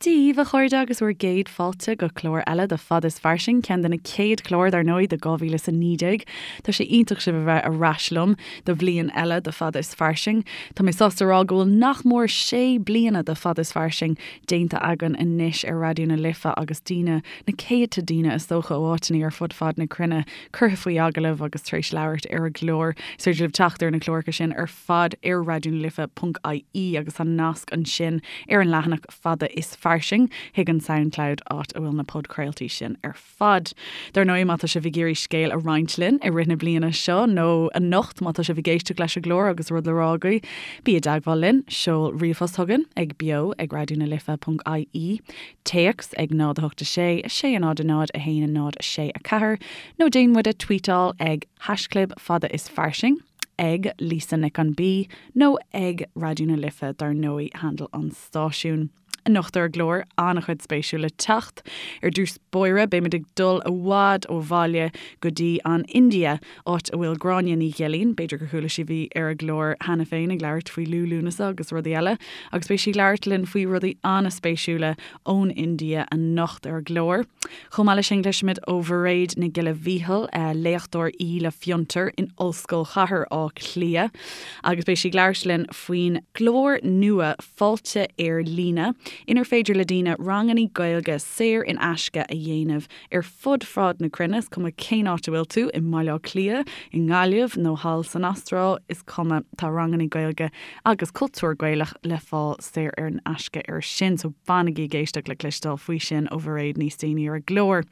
Dia dhaoibh, a chairde, agus bhur gcéad fáilte go clár eile de Fada is Fairsing, ceann de na céad clár, dar ndóigh, de 2019. Tá sé iontach sibh a bheith ar ais liom do bhliain eile de Fada is Fairsing. Tá mé sásta a rá go bhfuil nach mór sé bliana de Fada is Fairsing déanta againn anois ar Raidió na Life agus daoine, na céadta daoine is dócha, ó áiteanna ar fud fad na cruinne curtha faoi agallamh agus tar éis labhairt ar an gclár. Is féidir libh teacht ar na cláracha sin ar fad ar raidionalife.ie agus tá nasc ansin ar an leathanach Fada is Fairsing chuig an Soundcloud áit a bhfuil na podchraoltaí sin ar fad. Dar ndóigh, má tá sibh ag iarraidh scéal a roinnt linn i rith na bliana seo nó anocht má tá sibh ag éisteacht leis an gclár agus rud le rá agaibh, bí i dteagmháil linn, seol ríomhphost chugainn ag beo ag raidionalife.ie, téacs ag 0 8 6 6 0 0 1 0 6 4 nó déan muid a tweetáil ag haischlib fada is fairsing. ag Lisa Nic an B nó ag Raidió na Life dar ndóigh, handle an stáisiúin. Anocht ar an gclár, an-chuid spéisiúil le teacht. Ar dtús báire, beimid ag dul i bhfad ó bhaile go dtí an India, áit a bhfuil Gráinne Ní Ghilín, b'fhéidir gur chuala sibh í ar an gclár cheana féin ag labhairt faoi Liú Lúnasa agus rudaí eile, agus beidh sí ag labhairt linn faoi rudaí an-spéisiúla ón India anocht ar an gclár. Chomh maith leis sin, cloisfimid ó Mhairéad Nic Giolla Mhíchíl, léachtóir í le Fiontar in Ollscoil Chathair Átha Cliath, agus beidh sí ag labhairt linn faoin gclár nua Fáilte ar Líne, inar féidir le daoine ranganna Gaeilge saor in aisce a dhéanamh ar fud fad na cruinne, is cuma cén áit a bhfuil tú, i mBaile Átha Cliath, i nGaillimh nó thall san Astráil, is cuma, tá ranganna Gaeilge agus cultúr Gaelach le fáil saor in aisce air sin, so fanaigí ag éisteacht le cloisteáil faoi sin ó Mhairéad níos déanaí ar an gclár.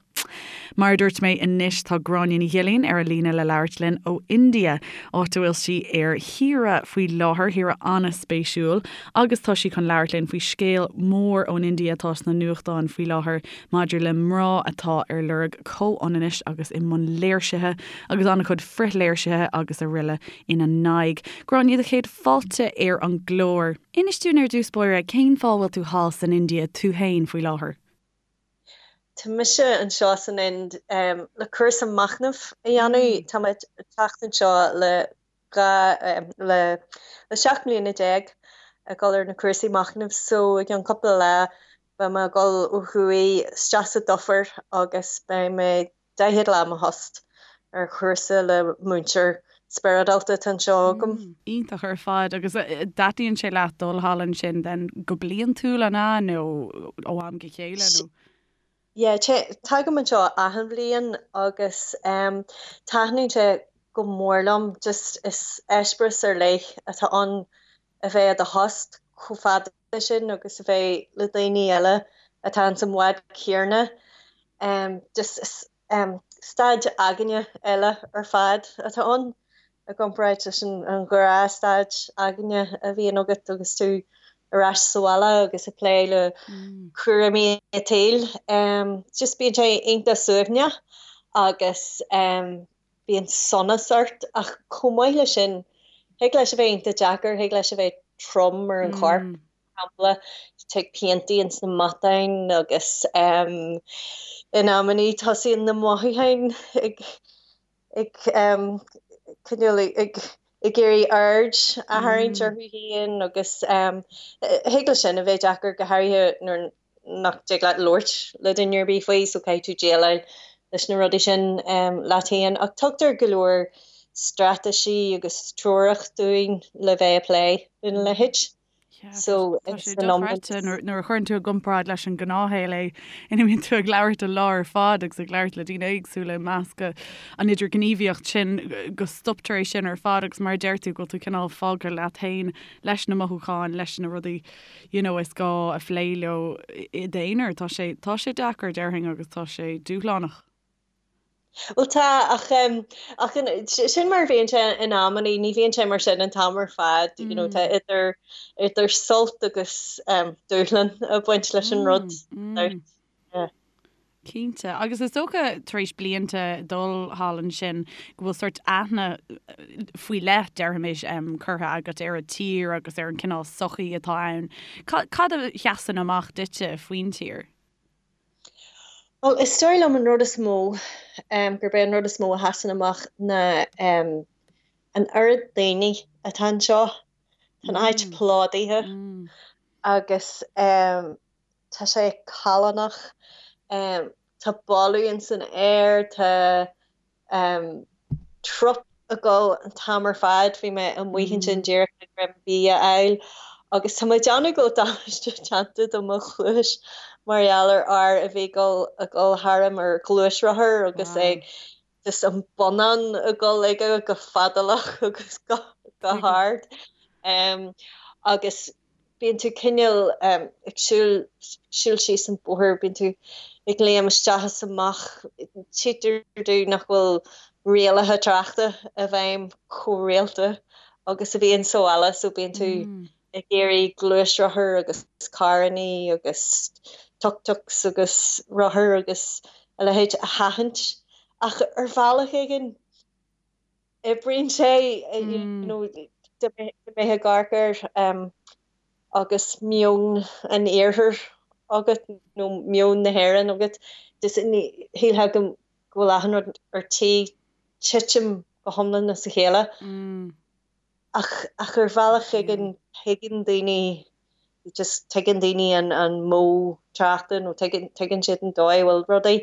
Mar a dúirt mé anois tá Gráinne Ní Ghilín ar an líne le labhairt linn ó India, áit a bhfuil sí ar shaoire faoi láthair, shaoire an-spéisiúil, agus tá sí chun labhairt linn faoi scéal mór ón India atá sna nuachtáin faoi láthair maidir le mná atá ar lorg comhionannais agus i mbun léirsithe agus an-chuid frithléirsithe agus araile ina n-aghaidh. Gráinne, do chéad fáilte ar an gclár. Inis dúinn ar dtús báire, cén fáth a bhfuil tú thall san India tú féin faoi láthair? Tá mise anseo san Ind le cúrsa machnaimh a dhéanamh. Tá mé ag teacht anseo le 2 le 17 mbliana ag dul ar na cúrsaí machnaimh so i gceann cúpla lá beidh mé ag dul ó thuaidh isteach sa dufair agus beidh mé 40 lá i mo thost ar chúrsa le múinteoir spioradálta atá anseo agam. Iontach ar fad. Agus dtaitníonn sé leat dul thall ansin then go bliantúil an ea nó ó am go chéile nó? Yeah, tagaim anseo achan bhliain agus taitníonn sé go mór liom. Just is eispéireas ar leith atá ann a bheith i do thost chomh fada sin agus a bheith le daoine eile atá ins an bhád céanna. Just is staid aigne eile ar fad atá ann i gcomparáid leis an ghnáthstaid aigne a bhíonn agat agus tú ar ais sa bhaile agus ag plé le cúraimí an tsaoil. Just bíonn sé iontach suaimhneach agus bíonn sonas ort ach chomh maith leis sin, thig leis a bheith iontach deacair, thig leis a bheith trom ar an chorp, mar shampla, tig piantaí ins na matáin agus in amannaí tosaíonn na mothúcháin ag ag cineál ag ag iarraidh aird a tharraingt orthu féin agus thig leis sin a bheith deacair go háirithe nuair nach dtig leat labhairt le duine ar bith faoi so caithfidh tú déileáil leis na rudaí sin leat féin. Ach tugtar go leor straitéisí agus treorach dúinn le bheith ag plé lena leithéid. So tá sé dochreidte nuair a chuireann tú i gcomparáid leis an ngnáthshaol é ina mbíonn tú ag labhairt an lá ar fad agus ag labhairt le daoine éagsúla i measc an idirghníomhaíocht sin go stoptar é sin ar fad agus mar a deir tú go bhfuil tú cineál fágtha leat féin leis na mothúcháin, leis na rudaí you know is gá a phlé leo i d'aonar. Tá sé, tá sé deacair déarfainn agus tá sé dúshlánach. Bhuel tá, ach ach sin mar a bhíonn sé in amannaí, ní bhíonn sé mar sin an t-am ar fad, you know, tá idir idir sult agus dúshlán ag baint leis an rud. Yeah. Cinnte. Agus is dócha tar éis blianta dul thall ansin go bhfuil sórt aithne faoi leith, déarfaimis, curtha agat ar an tír agus ar an cineál sochaí atá ann. Cad a sheasann amach duitse faoin tír? Bhuel, is dóigh liom an rud is mó, gurb é an rud is mó a sheasann amach ná an oiread daoine atá anseo. Tá an áit plódaithe agus. Tá sé callánach. Tá boladh ins an aer, tá trup ag dul an t-am ar fad. Bhí mé amuigh ansin díreach le greim bídh a fháil agus tá mé ag déanamh go bhfuil damáiste déanta do mo chluais mar gheall ar fhear a bhí ag dul ag dul tharam ar ghluaisrothar agus é just an bonnán ag dul aige go fadálach agus go hard. Agus bíonn tú cineál ag siúl, siúl síos an bóthar, bíonn tú ag léim isteach is amach, tchítear domh nach bhfuil rialacha tráchta i bhfeidhm chomh rialta agus a bhíonn sa bhaile so bíonn tú ag iarraidh gluaisrothair agus carrannaí agus tuk-tuks agus rothair agus a leithéid a sheachaint ach ar bhealach éigin oibríonn sé you know dá mbeifeá ag amharc air agus meon an iarthair agat nó meon na hÉireann agat just shílfeá go bhfuil achan rud ar tí titim go hiomlán as a chéile. Ach ach ar bhealach éigin tuigeann daoine just tuigeann daoine an an modh tráchta nó tuigeann tuigeann siad an dóigh a bhfuil rudaí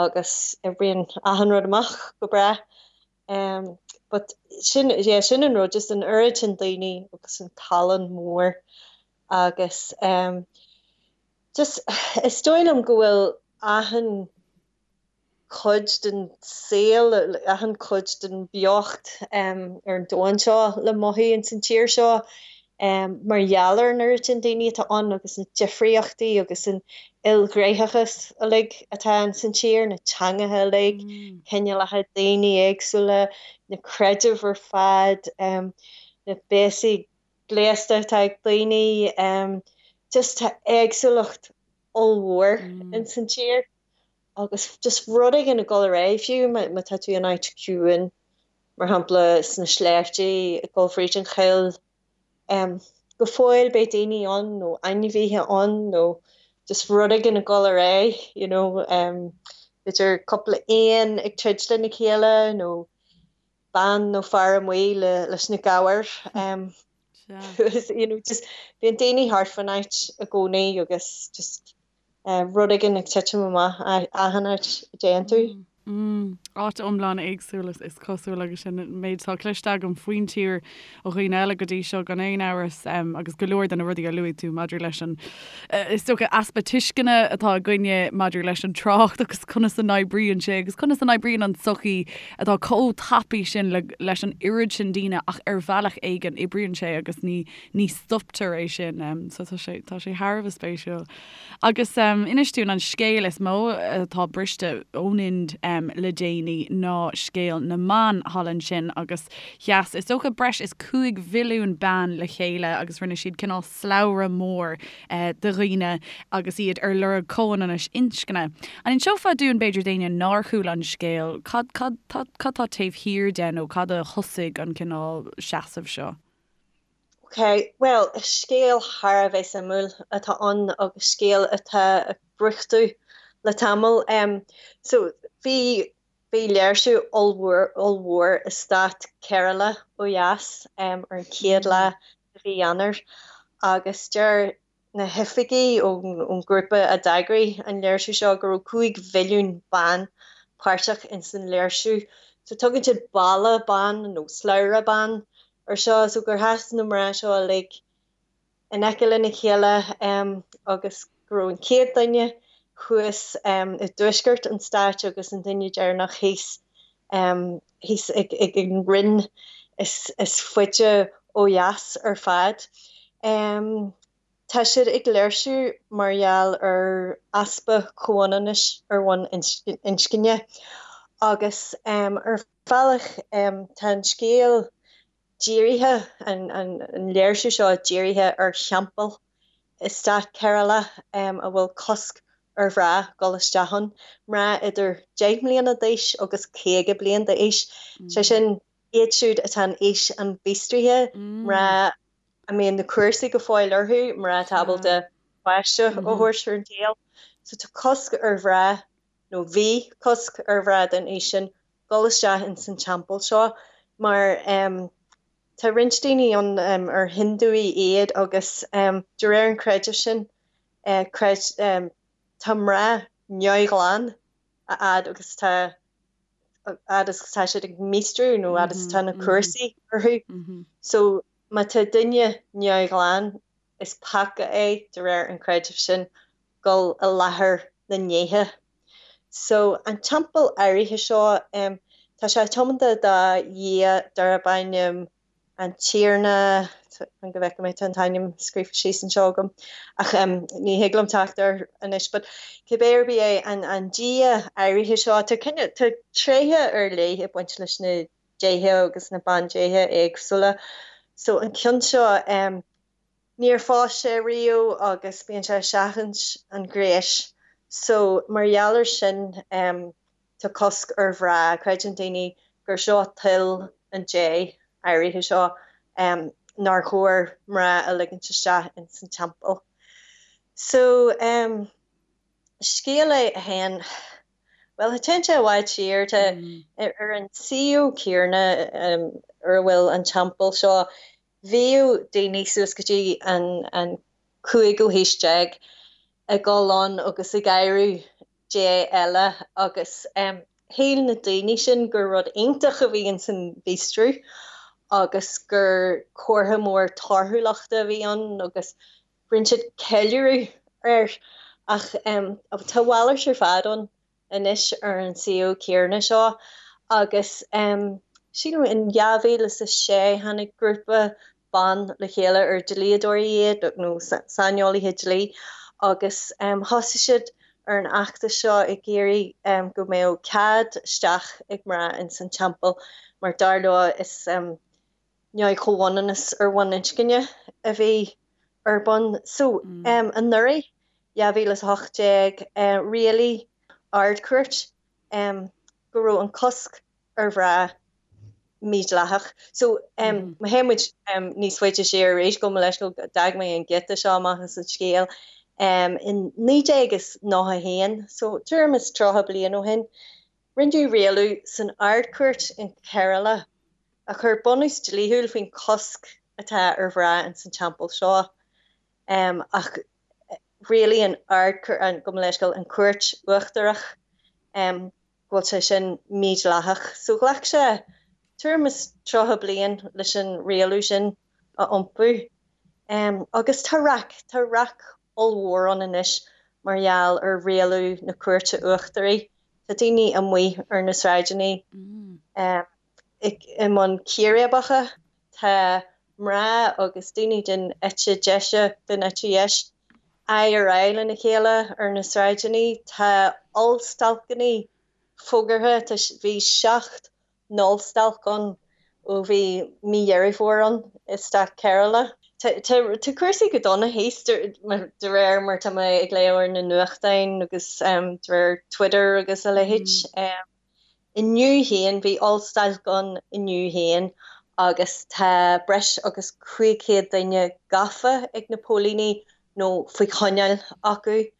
agus oibríonn achan rud amach go breá. Um, but sin yeah, sin an rud just an oiread sin daoine agus an callán mór agus um, just is dóigh liom go bhfuil achan cuid den saol, achan chuid den bheocht ar an domhan seo le mothú ins an tír seo mar gheall ar an oiread sin daoine atá ann agus na difríochtaí agus an ilghnéitheachas uilig atá ins an tír, na teangacha uilig, cineálacha daoine éagsúla, na creidimh ar fad, na béasaí gléasta atá ag daoine, just tá éagsúlacht ollmhór ins an tír. Agus just rud éigin ag dul ar aghaidh, fiú má tá tú in áit ciúin, mar shampla sna sléibhte, ag dul fríd an choill, go fóill beidh daoine ann nó ainmhithe ann nó just rud éigin ag dul ar aghaidh, you know, b'fhéidir cúpla éan ag troid lena chéile nó bean nó fear amuigh leis na gabhair. You know, just bíonn daoine thart fán áit i gcónaí agus just rud éigin ag titim amach achan áit a dtéann tú. Áit iomlán éagsúil is cosúil agus sin an méid atá cloiste agam faoin tír ó dhaoine eile go dtí seo gan aon amhras agus go leor de na rudaí a luaigh tú maidir leis an is dócha easpa tuisceana atá againne maidir leis an trácht agus conas a n-oibríonn sé agus conas a n-oibríonn an tsochaí atá chomh tapaidh sin leis an oiread sin daoine ach ar bhealach éigin oibríonn sé agus ní ní stoptar é sin. So tá sé, tá sé thar a bheith spéisiúil. Agus inis dúinn an scéal is mó atá briste ón Ind le déanaí ná scéal na mban thall ansin agus sheas is dócha breis is 5 mhilliún bean le chéile agus rinne siad cineál slabhra mór de dhaoine agus iad ar lorg comhionannais inscne. An inseofá dúinn b'fhéidir d'éinne nár chuala an scéal cad, cad, cad tá taobh thiar de nó cad a thosaigh an cineál seasamh seo? Ok, bhuel, scéal thar a bheith suimiúil atá ann agus scéal atá ag brúchtadh le tamall. So, bhí, bhí léirsiú ollmhór, ollmhór i stát Kerala ó dheas ar an chéad lá de mhí Eanáir agus deir na hoifigigh ón ngrúpa a d'eagraigh an léirsiú seo go raibh 5 mhilliún bean páirteach ins an léirsiú. So tugann siad balla ban nó slabhra ban ar seo, so gur sheas na mná seo uilig in aice lena chéile agus go raibh an chéad duine thuas i dtuaisceart an stáit agus an duine deireanach thíos thíos ag an rinn is faide ó dheas ar fad. Tá siad ag léirsiú mar gheall ar easpa comhionannais ar bhonn inscne agus ar bhealach tá an scéal dírithe, an léirsiú seo dírithe ar theampall i stát Kerala a bhfuil cosc ar mhná dul isteach ann, mná idir 10 mbliana d'aois agus 50 bliain d'aois, sé sin iad siúd atá in aois an mhíostraithe, mná a mbíonn na cúrsaí go fóill orthu, mná atá ábalta páiste a thabhairt ar an tsaol. So tá cosc ar mhná, nó bhí cosc ar mhná den aois sin, dul isteach ins an teampall seo mar tá roinnt daoine ann ar Hindúigh iad agus de réir an chreidimh sin. Creid, tá mná neamhghlan a fhad agus tá fhad is tá siad ag míostrú nó fhad is atá na cúrsaí orthu. So má tá duine neamhghlan is peaca é de réir an chreidimh sin dul i láthair na ndéithe. So an teampall áirithe seo, tá sé tiomanta do dhia darb ainm an Tiarna, fan go bhfeicfidh mé, tá an t-ainm scríofa síos anseo agam ach ní thig liom teacht air anois, but cibé ar bith é, an dia áirithe seo, tá cineál, tá tréithe ar leith ag baint leis na déithe agus na bandéithe éagsúla. So an ceann seo, níor phós sé riamh agus bíonn sé ag seachaint an ghnéis. So mar gheall ar sin, tá cosc ar mhná, creideann daoine gur seo toil an dé áirithe seo nár chóir mná a ligint isteach ins an teampall. So scéal é a théann, bhuel téann sé i bhfad siar, tá ar an suíomh céanna ar a bhfuil an teampall seo, bhíodh daoine suas go dtí an cúigiú haois déag ag dul ann agus ag adhradh Dé eile agus shíl na daoine sin gur rud iontach a bhí ins an mhíostrú agus gur comhartha mór torthúlachta a bhí ann agus rinne siad ceiliúradh air ach tá a mhalairt ar fad ann anois ar an suíomh céanna seo agus sílim in 2006 tháinig grúpa ban le chéile ar dlíodóirí iad nó saineolaithe dlí agus thosaigh siad ar an fheachtas seo ag iarraidh go mbeadh cead isteach ag mná ins an teampall mar dar leo is neamh-chomhionannas ar bhonn inscne a bhí ar bun. So anuraidh, 2018, rialaigh Ard-Chúirt go raibh an cosc ar mhná mídhleathach. So má théann muid níos faide siar arís, gabh mo leithscéal, d'fhág mé an giota seo amach as an scéal, in 1991, so tuairim is 30 bliain ó shin, rinneadh rialú san Ard-Chúirt in Kerala a chuir bunús dlíthiúil faoin chosc atá ar mhná ins an teampall seo. Ach rialaigh an Ard-Chúirt, gabh mo leithscéal, an Chúirt Uachtarach, go bhfuil sé sin mídhleathach. So ghlac sé tuairim is 30 bliain leis an rialú sin a iompú. Agus tá raic, tá raic ollmhór ann anois mar gheall ar rialú na Cúirte Uachtaraí. Tá daoine amuigh ar na sráideanna i mbun círéibeacha. Tá mná agus daoine den eite deise, den eite dheis, aghaidh ar aghaidh lena chéile ar na sráideanna. Tá ollstailceanna fógartha, tá, bhí 7 n-ollstailc ann ó bhí mí Dheireadh Fómhair ann i stát Kerala. Tá, tá, tá cúrsaí go dona thíos de réir mar tá mé ag léamh ar na nuachtáin agus de réir Twitter agus a leithéid. Inniu féin, bhí ollstailc ann inniu féin agus tá breis agus 500 duine gafa ag na póilíní nó faoi choinneáil acu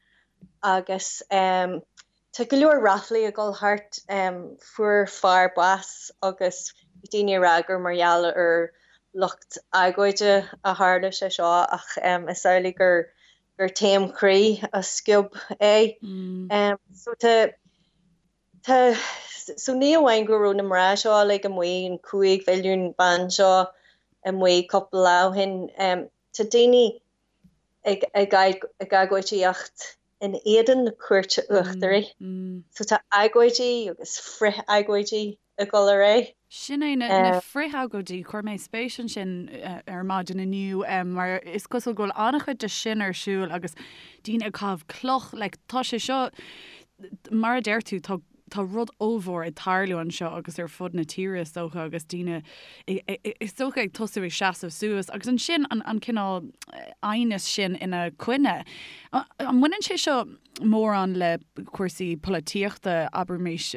agus tá go leor ráflaí ag dul thart. Fuair fear bás agus bhí daoine ag rá gur mar gheall ar lucht agóide a tharla sé seo ach is amhlaidh gur gur taom croí a sciob é. So tá Tá, so ní amháin go raibh na mná seo uilig amuigh, an 5 mhilliún bean seo amuigh cúpla lá ó shin, tá daoine ag ag agóidíocht in éadan na Cúirte Uachtaraí. So tá agóidí agus frith-agóidí ag dul ar aghaidh. Sin é, na frith-agóidí, chuir mé spéis ansin ar maidin inniu mar is cosúil go bhfuil an-chuid de sin ar siúl agus daoine ag caitheamh cloch, like tá sé seo, mar a deir tú, tá tá rud ollmhór ag tarlú anseo agus ar fud na tíre is dócha agus daoine is dócha ag tosú ag seasamh suas agus ansin an an cineál aighneas sin ina coinne. An mbaineann sé seo mórán le cúrsaí polaitíochta, abraimis,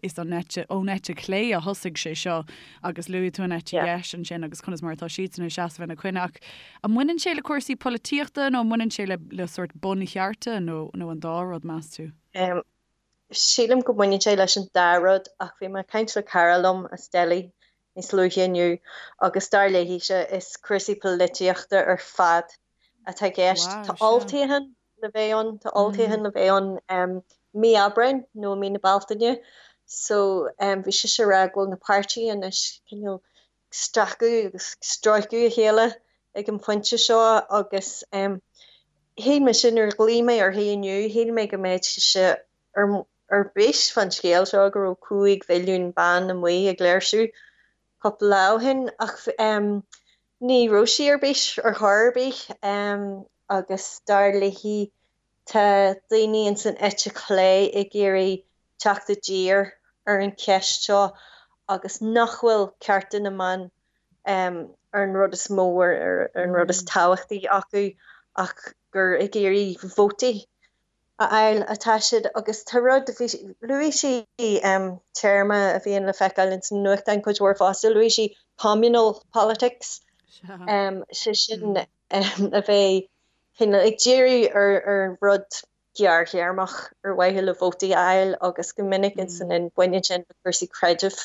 is an eite, ón eite chlé a thosaigh sé seo agus luaigh tú an eite dheis ansin agus conas mar atá siadsan ag seasamh ina coinne ach an mbaineann sé le cúrsaí polaitíochta nó an mbaineann sé le le sórt bunchearta nó nó an dá rud, meas tú? Sílim go mbaineann sé leis an dá rud ach bhí mé ag caint le cara liom as Delhi níos luaithe inniu agus dar léise is cúrsaí polaitíochta ar fad atá i gceist. Tá olltoghchán. le bheith ann, tá olltoghchán le bheith ann mí Aibreáin nó mí na Bealtaine so bhí sise ag rá go bhfuil na páirtithe anois cineál ag stracadh agus ag stróiceadh a chéile ag an phointe seo agus shíl mise nuair a ghlaoigh mé uirthi inniu, shíl mé go mbeadh sise ar ar bís fán scéal seo go raibh 5 mhilliún bean amuigh ag léirsiú cúpla lá ó shin ach ní raibh sí ar bís ar chor ar bith agus dar léi tá daoine ins an eite chlé ag iarraidh teacht i dtír ar an cheist seo agus nach bhfuil cearta na mban ar an rud is mó ar an rud is tábhachtaí acu ach gur ag iarraidh vótaí a fháil atá siad agus tá rud, bhí, luaigh sí téarma a bhíonn le feiceáil ins na nuachtáin cuid mhór fosta, luaigh sí communal politics, sé sin a bheith cineál ag díriú ar ar rud gearrthéarmach ar mhaithe le vótaí a fháil agus go minic ins an Ind baineann sin le cúrsaí creidimh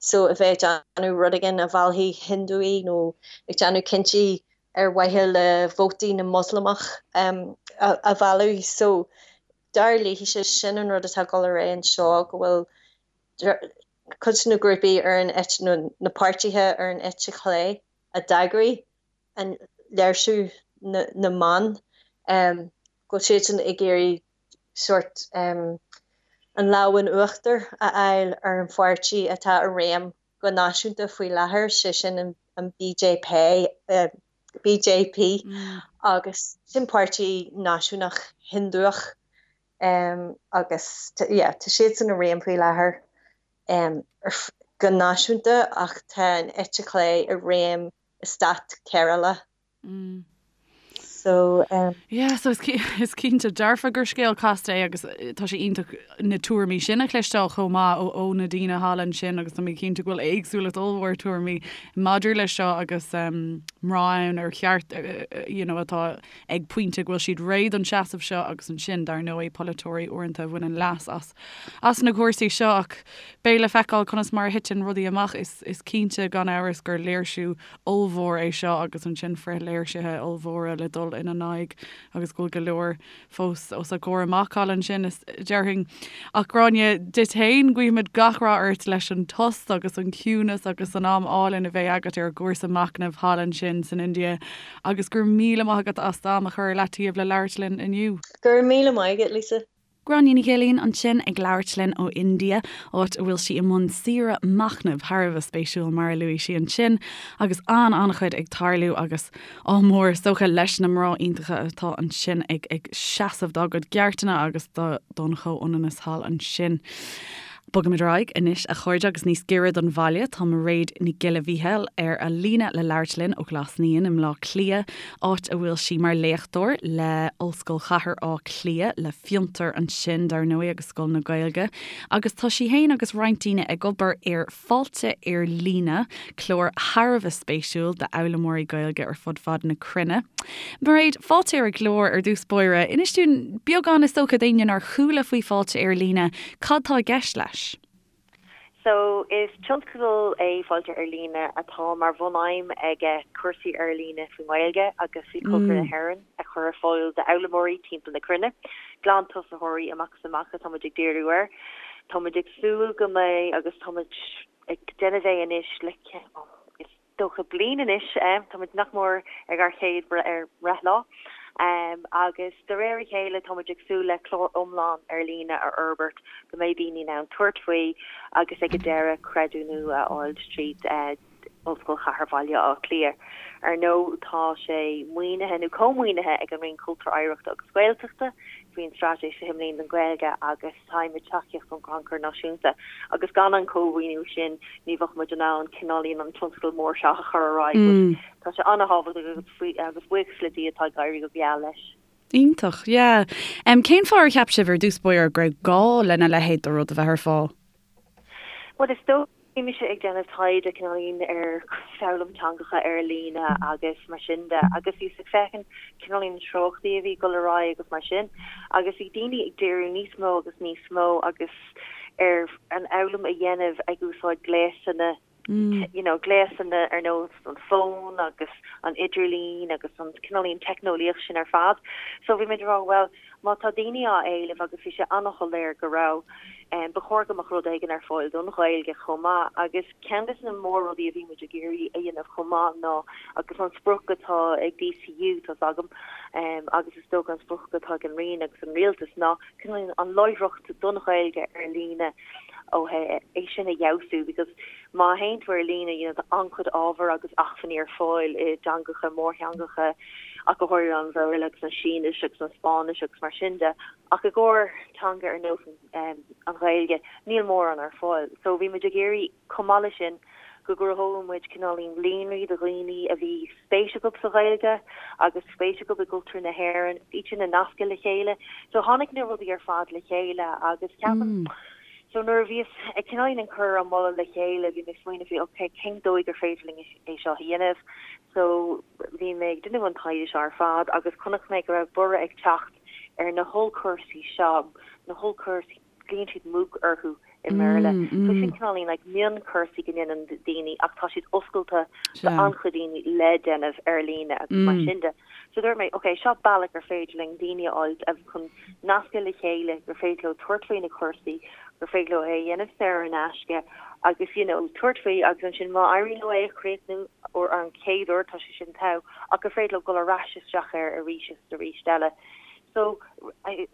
so a bheith ag déanamh rud éigin a mheallfaidh Hindúigh nó ag déanamh cinntí ar mhaithe le vótaí na Moslamach a mhealladh. So, dar léithise, sin an rud atá ag dul ar aghaidh anseo, go bhfuil cuid de na grúpaí ar an eite, nó na páirtithe ar an eite chlé a d'eagraigh an léirsiú na mban, go bhfuil siadsan ag iarraidh sórt an lámh in uachtar a fháil ar an pháirtí atá i réim go náisiúnta faoi láthair, sé sin an BJP, BJP, agus sin páirtí náisiúnach Hiondúch agus yeah tá siadsan i réim faoi láthair go náisiúnta ach tá an eite chlé i réim i stát Kerala. So, um. Yeah, so is is cinnte dearfa gur scéal casta é agus tá sé iontach na tuairimí sin a chloisteáil chomh maith ó ó na daoine thall ansin agus tá mé cinnte go bhfuil éagsúlacht ollmhór tuairimí maidir leis seo agus um, mná ann ar cheart you know, atá ag pointe go bhfuil siad réidh don seasamh seo agus ansin dar ndóigh polaiteoirí uaireanta a bhaineann leas as as na cúrsaí seo ach beidh le feiceáil conas mar a thiteann rudaí amach is is cinnte gan amhras gur léirsiú ollmhór é seo agus ansin frithléirsithe ollmhóra le dul ina n-aghaidh agus go bhfuil go leor fós os a gcomhair amach thall ansin, is déarfainn. Ach Gráinne, duit féin, guímid gach rath ort leis an tost agus an ciúnas agus an am álainn a bheidh agat ar an gcúrsa machnaimh thall ansin san India agus go raibh míle maith agat as d'am a chur ar leataobh le labhairt linn inniu. Go raibh míle maith agat, Lisa. Gráinne Ní Ghilín ansin ag labhairt linn ó India, áit a bhfuil sí i mbun saoire machnaimh thar a bheith spéisiúil mar a luaigh sí ansin, agus an-an-chuid ag tarlú agus ádh mór is dócha leis na mná iontacha atá ansin ag ag seasamh dá gcuid gceartanna agus do don chomhionannas thall ansin. Bogaimid ar aghaidh anois, a chairde, agus níos giorra don bhaile, tá Mairéad Nic Giolla Mhíchíl ar an líne le labhairt linn ó Ghlas Naíon i mBleá Cliath, áit a bhfuil sí mar léachtóir le Ollscoil Chathair Átha Cliath, le Fiontar ansin, dar ndóigh, agus Scoil na Gaeilge. Agus tá sí féin agus roinnt daoine ag obair ar Fáilte ar Líne, clár thar a bheith spéisiúil d'fhoghlaimeoirí Gaeilge ar fud fad na cruinne. Mairéad, fáilte ar an gclár ar dtús báire. Inis dúinn beagán is dócha d'éinne nár chuala faoi Fáilte ar Líne, cad tá i gceist leis? So, is tionscadal é Fáilte ar Líne atá mar bhun-aidhm aige cúrsaí ar líne faoin nGaeilge agus faoi chultúr na hÉireann a chur ar fáil d'fhoghlaimeoirí timpeall na cruinne. Glantosaitheoirí amach is amach atá muid ag díriú air. Tá muid ag súil go mbeidh agus tá muid ag déanamh é anois le is dócha bliain anois, tá muid nach mór ag ár chéad bhreithlá agus de réir a chéile tá muid ag súil le clár iomlán ar líne a fhorbairt go mbeidh daoine in ann tabhairt faoi agus ag an deireadh creidiúnú a fháil tríd Ollscoil Chathair Bhaile Átha Cliath. Ar ndóigh, tá sé maoinithe, nó cómhaoinithe, ag an Roinn Cultúir, Oidhreachta agus Gaeltachta faoin Straitéis 20 Bliain don Ghaeilge agus faighimid tacaíocht ón gCrannchur Náisiúnta agus gan an cómhaoiniú sin ní bheadh muid in ann cineáilín an tionscadal mór seo a chur ar aghaidh. But tá sé an-thábhachtach agus agus buíochas le Dia tá ag éirí go geal leis. Iontach, yeah. Cén fáth ar cheap sibh ar dtús báire go raibh gá lena leithéid de rud a bheith ar fáil? Bhuel, is dóigh, bhí mise ag déanamh taighde cineáilín ar foghlaim teangacha ar líne agus mar sin de agus bhíos ag féachaint cineáilín na treochtaí a bhí ag dul ar aghaidh agus mar sin agus bhí daoine ag díriú níos mó agus níos mó agus ar an fhoghlaim a dhéanamh ag úsáid gléasanna. you know, gléasanna ar nós an fón agus an idirlíon agus an cineáilín teicneolaíocht sin ar fad. So bhí muid ag rá, bhuel, má tá daoine á éileamh agus bhí sé an-shoiléir go raibh, ba chóir go mbeadh rud éigin ar fáil don Ghaeilge chomh maith agus ceann de na mór-rudaí a bhí muid ag iarraidh a dhéanamh chomh maith ná, agus an sprioc atá ag DCU, tá's agam, agus is dócha an sprioc atá ag an Roinn agus an Rialtas ná cineáilín an láithreacht don Ghaeilge ar líne ó thaobh é sin a fheabhsú because má théann tú ar líne you know tá an-chuid ábhar agus acmhainní ar fáil i dteangacha, mórtheangacha ach go háirithe an Bhéarla agus an Sínis agus an Spáinnis agus mar sin de ach i gcomhair teanga ar nós an Ghaeilge níl mórán ar fáil. So bhí muid ag iarraidh chomh maith leis sin go gcruthódh muid cineáilín líonraí do dhaoine a bhí spéis acu sa Ghaeilge agus spéis acu i gcultúr na hÉireann, iad sin a nascadh le chéile. So tháinig na rudaí ar fad le chéile agus ceapaim so nuair a bhíos ag cineáilín ag cur an moladh le chéile bhí mé ag smaoineamh faoi ok cén dóigh gur féidir linn é seo a dhéanamh. So bhí mé ag déanamh an taighde seo ar fad agus chonaic mé go raibh borradh ag teacht ar na hollchúrsaí seo, na hollchúrsaí glaonn siad MOOC orthu i mBéarla. So sin cineáilín like mionchúrsaí go ndéanann daoine ach tá siad oscailte do an-chuid daoine le déanamh ar líne agus mar sin de. So dúirt mé, ok, seo bealach gur féidir linn daoine a fháil chun nascadh le chéile, gur féidir leo tabhairt faoi na cúrsaí, gur féidir leo é a dhéanamh saor in aisce agus you know tabhairt faoi agus ansin má éiríonn leo é a chríochnú uair an chéad uair tá sé sin togha ach gur féidir leo dul ar ais isteach air arís is arís eile. So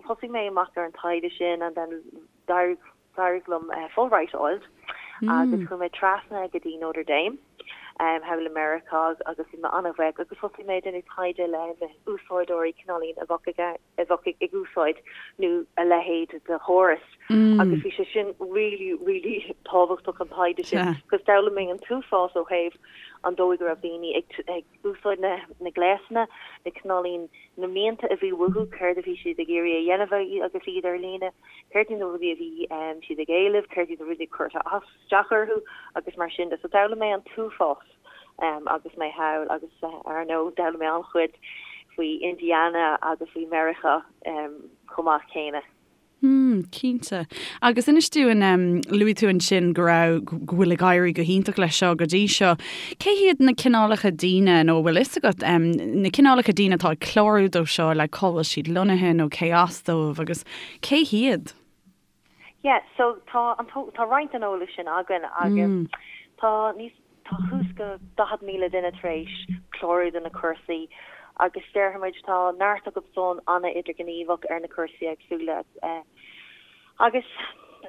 thosaigh mé amach ar an taighde sin and then d'éirigh d'éirigh liom Fulbright a fháilt agus chuaigh mé trasna go dtí Notre Dame thall i Meiriceá agus bhí mé an-bhuíoch agus thosaigh mé ag déanamh taighde le na úsáideoirí cineáilín a bheadh ag a bheadh ag úsáid nó a leithéid de chóras agus bhí sé sin really really tábhachtach an taighde sin because d'fhoghlaim mé an t-uafás ó thaobh an dóigh go raibh daoine ag ag úsáid na na gléasanna, na cineáilín, na mianta a bhí uathu, céard a bhí siad ag iarraidh a dhéanamh agus iad ar líne, céard iad na rudaí a bhí siad ag éileamh, céard iad na rudaí a chuir isteach orthu agus mar sin de. So d'fhoghlaim mé an t-uafás agus mé thall agus ar ndóigh d'fhoghlaim mé an-chuid faoi Indiana agus faoi Meiriceá chomh maith céanna. Hmm, cinnte. Agus inis dúinn, luaigh tú ansin go raibh, go bhfuil ag éirí go hiontach leis seo go dtí seo. Cé hiad na cineálacha daoine, nó an bhfuil fhios agat, na cineálacha daoine atá ag clárú dó seo, like cá bhfuil siad lonnaithe nó cé as dóibh agus cé hiad? Yeah, so tá an tá roinnt den eolas sin againn agus tá níos Tá thuas go 40,000 duine tar éis clárú do na cúrsaí agus déarfaimid tá neart acu san an-idirghníomhach ar na cúrsaí éagsúla agus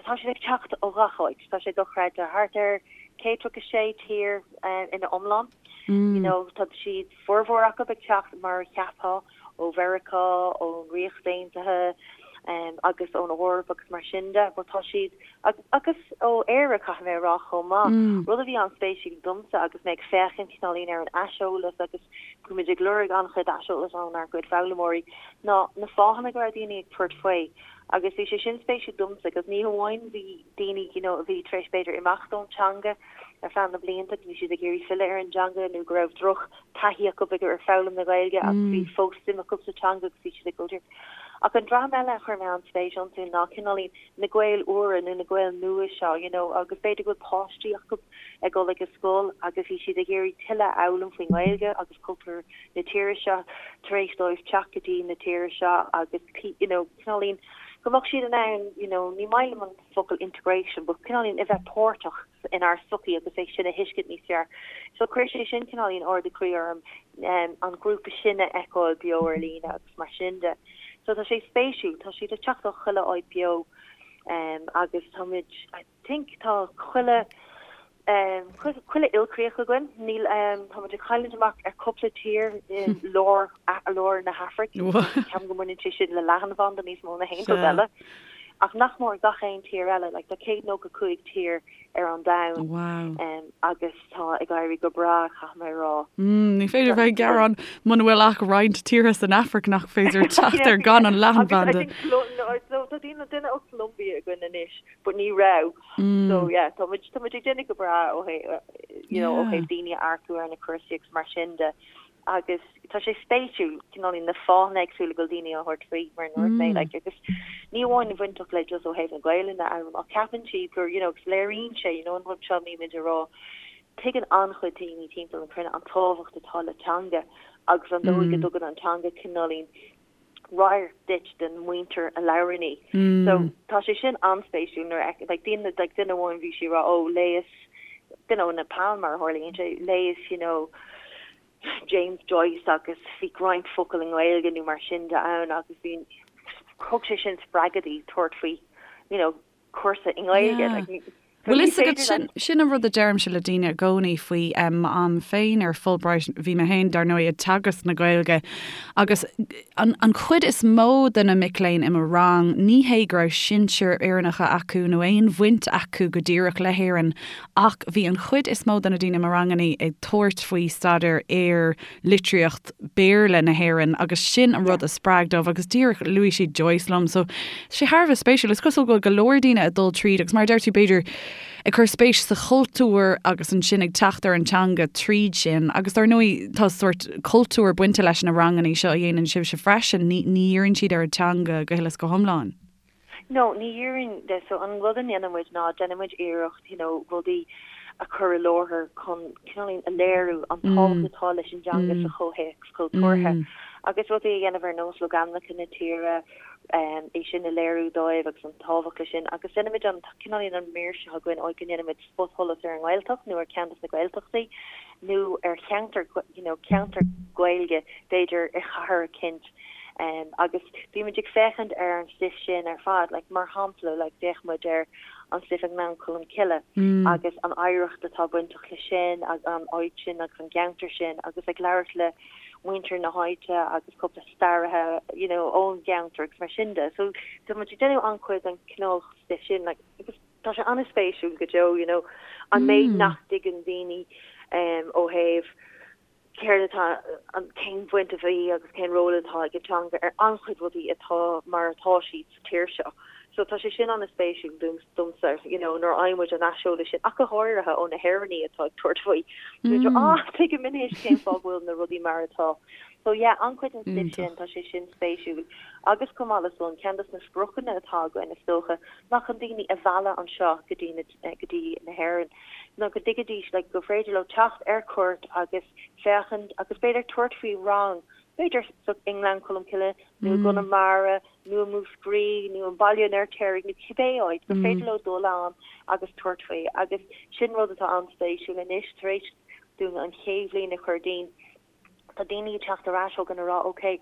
tá siad ag teacht ó gach áit. Tá sé dochreidte. Thart ar 136 tír ina iomlán. You know, tá siad formhór acu ag teacht mar a cheapfá ó Mheiriceá, ón Ríocht Aontaithe agus ón Eoraip agus mar sin de, but tá siad, agus ó Éire caithfidh mé a rá chomh maith, rud a bhí an-spéisiúil domsa agus mé ag féachaint cineáilín ar an aiseolas agus bhí muid ag lorg an-chuid aiseolas ónár gcuid foghlaimeoirí, ná na fáthanna go raibh daoine ag tabhairt faoi agus bhí sé sin spéisiúil domsa agus ní hamháin bhí daoine you know a bhí tar éis b'fhéidir imeacht ón teanga ar feadh na blianta, bhí siad ag iarraidh filleadh ar an dteanga nó go raibh droch taithí acu ag ar foghlaim na Gaeilge ach bhí fós suim acu sa teanga agus bhí siad ag dul Ach an dream eile a chuir mé an-spéis iontu ná cineáilín na Gaeil úra nó na Gaeil nua seo, you know, agus b'fhéidir go bhfuil páistí acu ag dul ag an scoil agus bhí siad ag iarraidh tuilleadh a fhoghlaim faoin nGaeilge agus cultúr na tíre seo tar éis dóibh teacht go dtí na tíre seo agus, you know, cineáilín go mbeadh siad in ann, you know, ní maith liom an focal integration but cineáilín a bheith páirteach inár sochaí agus é sin a thuiscint níos fearr. So chuir sé sin cineáilín ardú croí orm an grúpa sin a fheiceáil beo ar líne agus mar sin de. So tá sé spéisiúil, tá siad ag teacht ó chuile áit beo agus táimid, I think tá chuile chuile ilchríoch againn, níl táimid ag cailliúint amach ar cúpla tír i lár lár na hAfraic, ceapaim go mbaineann sé sin le leathanbhanda níos mó ná haon rud eile. Ach nach mór gach aon tír eile, like tá 195 tír ar an domhan Wow. agus tá ag éirí go breá, caithfidh mé a rá. Mm, ní féidir bheith ag gearán muna bhfuil ach roinnt tíortha san Afraic nach féidir teacht ar gan an leathanbhanda. Tá daoine duine ó Colombia againn anois, but ní raibh. So yeah, tá muid tá muid ag déanamh go breá ó thaobh you know, ó thaobh daoine a earcú ar na cúrsaí agus mar sin de. Agus tá sé spéisiúil, cineáilín na fáthanna éagsúla go bhfuil daoine á thabhairt faoi, mar a dúirt mé, like, agus ní amháin a bhainteach le just ó thaobh na Gaelainne a fhoghlaim, ach ceapann siad gur, you know, agus léiríonn sé, you know, an rud seo a mbímid a rá. Tuigeann an-chuid daoine timpeall na cruinne an tábhacht atá le teanga agus an dóigh go dtugann an teanga cineáilín radharc duit den mhuintir a labhrann í. So tá sé sin an-spéisiúil nuair a like daoine like duine amháin bhí sí ag rá oh léas duine ó Nepal mar a tharlaíonn sé léas you know James Joyce agus bhí roinnt focal i nGaeilge nó mar sin de ann agus bhí thug sé sin spreagadh di tabhairt faoi you know cúrsa i nGaeilge. Like, Bhfuil fhios agat, sin, sin an rud a deirimse le daoine i gcónaí faoi m'am féin ar Fulbright, bhí mé féin, dar ndóigh, ag teagasc na Gaeilge agus an, an chuid is mó de na mic léinn i mo rang, ní hé go raibh sinsir Éireannacha acu nó aon bhaint acu go díreach le hÉirinn ach bhí an chuid is mó de na daoine i mo rangannaí ag tabhairt faoi staidéar ar litríocht Béarla na hÉireann agus sin an rud a spreag dóibh agus díreach luaigh siad Joyce liom so tá sé thar a bheith spéisiúil. Is cosúil go bhfuil go leor daoine ag dul tríd agus mar a deir tú b'fhéidir ag cur spéis sa chultúr agus ansin ag teacht ar an teanga tríd sin agus dar ndóigh tá sórt cultúr bainte leis na rangannaí seo a dhéanann sibhse freisin, ní ní dhíríonn siad ar an teanga go huile is go hiomlán. No, ní dhíríonn de. So an rud a ndéanann muid ná déanann muid iarracht, you know, rudaí a chur i láthair chun cineáilín a léiriú an tábhacht atá leis an dteanga sa chomhthéacs cultúrtha agus rudaí a dhéanamh ar nós logainmneacha na tíre, é sin a léiriú dóibh agus an tábhacht leis sin. Agus déanann muid an cineáilín an mír seo againn áit go ndéanann muid spotsholas ar an nGaeltacht nó ar cheann des na Gaeltachtaí nó ar cheantar, you know, ceantar Gaeilge b'fhéidir i chathair eicínt agus bímid ag féachaint ar an stuif sin ar fad, like mar shampla, like d'fhéach muid ar an stuif i nGleann Cholm Cille agus an oidhreacht atá bainteach le sin agus an áit sin agus an gceantar sin agus ag labhairt le muintir na háite agus cúpla staraithe, you know, ón gceantar agus mar sin de. So tá muid ag déanamh an-chuid den cineál stuif sin, like agus Tá sé an-spéisiúil go deo, you know, an méid nach dtuigeann daoine ó thaobh céard atá, an, cén bhaint a bhí agus cén ról atá ag an teanga ar an-chuid rudaí atá mar atá siad sa tír seo. So tá sé sin an-spéisiúil domsa, you know, nuair a fhaigheann muid an aiseolas sin, ach go háirithe ó na hÉireannaigh atá ag tabhairt faoi. Mm. Ah, tuigim anois cén fáth go bhfuil na rudaí mar atá. So yeah, an-chuid den stuif sin, tá sé sin spéisiúil. Agus chomh maith le san, ceann des na spriocanna atá againn, is dócha, ná chun daoine a mhealladh anseo go dtí na, go dtí na hÉireann, ná go dtuigfidís like gur féidir leo teacht ar cuairt agus féachaint agus b'fhéidir tabhairt faoi rang, b'fhéidir sa, i nGleann Cholm Cille nó i gConamara nó i Múscraí nó i mBaile an Fheirtéaraigh nó cibé áit, gur féidir leo dul ann agus tabhairt faoi. Agus sin rud atá an-spéisiúil anois, tar éis dúinn an chéad bhliain a chur dínn, Tá daoine ag teacht ar ais chugainn ag rá ok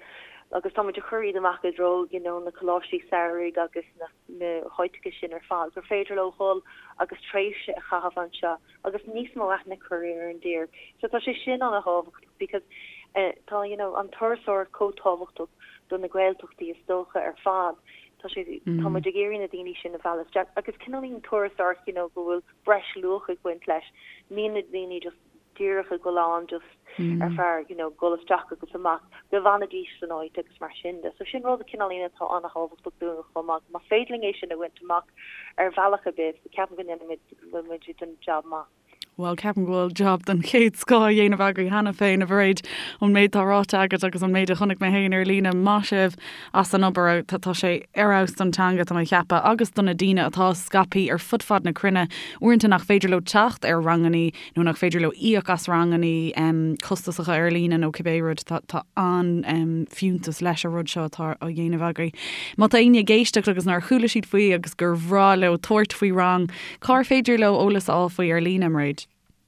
agus tá muid ag cur iad amach i dtreo you know na coláistí samhraidh agus na na háiteacha sin ar fad gur féidir leo dhul agus tréimhse a chaitheamh anseo agus níos mó aithne a chur ar an dtír. So tá sé sin an-thábhachtach because eh tá you know an turasóireacht chomh tábhachtach do na Gaeltachtaí is dócha ar fad. Tá sé tá muid ag iarraidh na daoine sin a mhealladh isteach agus cineáilín turasóireacht you know go bhfuil breis luach ag baint leis. Níl na daoine just díreach ag dul ann just ar feadh you know dul isteach agus amach, go bhfanfaidís san áit agus mar sin de. So sin rud cineáilín atá an-thábhachtach dúinn chomh maith. Más féidir linn é sin a bhaint amach ar bhealach ar bith, ceapaim go ndéanfaimid, go bhfuil muid ag déanamh jab maith. Bhuel, ceapaim go bhfuil jab den chéad scoth á dhéanamh agaibh cheana féin, a Mhairéad, ón méid atá ráite agat agus an méid a chonaic mé féin ar líne. Maith sibh as an obair. Tá sé ar fheabhas don teanga, tá mé ag ceapadh, agus do na daoine atá scaipthe ar fud fad na cruinne, uaireanta nach féidir leo teacht ar rangannaí nó nach féidir leo íoc as rangannaí costasacha ar líne nó cibé rud, tá an-fhiúntas leis an rud seo atá á dhéanamh agaibh. Má tá éinne ag éisteacht agus nár chuala siad faoi agus gur bhreá leo tabhairt faoi rang, cár féidir leo eolas a fháil faoi ar líne, Mairéad?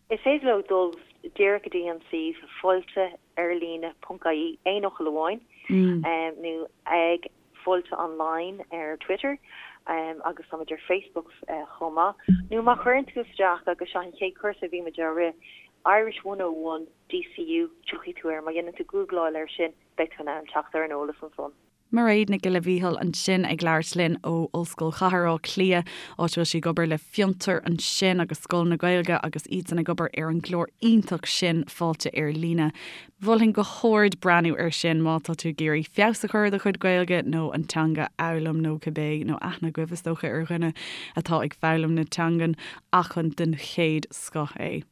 Is féidir leo dul díreach go dtí an suíomh fáilte-ar-líne ponc ie, aon fhocal amháin, nó ag Fáilte Online ar Twitter agus táimid ar Facebook chomh maith. Nó má chuireann tú isteach, agus seo an chéad cúrsa a bhí muid á rith, Irish 101 DCU, tiocfaidh tú air. Má dhéanann tú gúgláil air sin, beidh tú in ann teacht ar an eolas ansan. Mairéad Nic Giolla Mhíchíl ansin ag labhairt linn ó Ollscoil Chathair Átha Cliath, áit a bhfuil sí ag obair le Fiontar ansin agus Scoil na Gaeilge agus iadsan ag obair ar an gclár iontach sin Fáilte ar Líne. Mholfainn go hard breathnú air sin má tá tú ag iarraidh feabhas a chur ar do chuid Gaeilge nó an teanga a fhoghlaim nó cibé, nó aithne agaibh is dócha ar dhuine atá ag foghlaim na teangan ach an den chéad scoth é.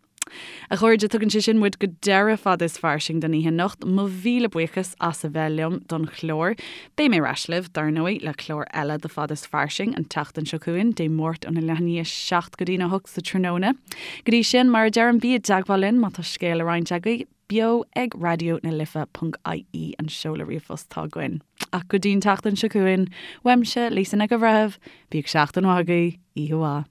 A chairde, tugann sé sin muid go deireadh Fada is Fairsing don oíche anocht. Mo mhíle buíochas as a bheith liom don chlár. Beidh mé ar ais libh, dar ndóigh, le clár eile de Fada is Fairsing an tseachtain seo chugainn, Dé Máirt óna leath i ndiaidh a 7 go dtína 8 sa tráthnóna. Go dtí sin, mar a deirim, bí i dteagmháil linn má tá scéal le roinnt agaibh, beo ag raidió na life ponc ie an seoladh ríomhphost atá againn. Ach go dtí an tseachtain seo chugainn, uaimse, Lisa Nic an Bhreithimh, bíodh seachtain mhaith agaibh, oíche mhaith.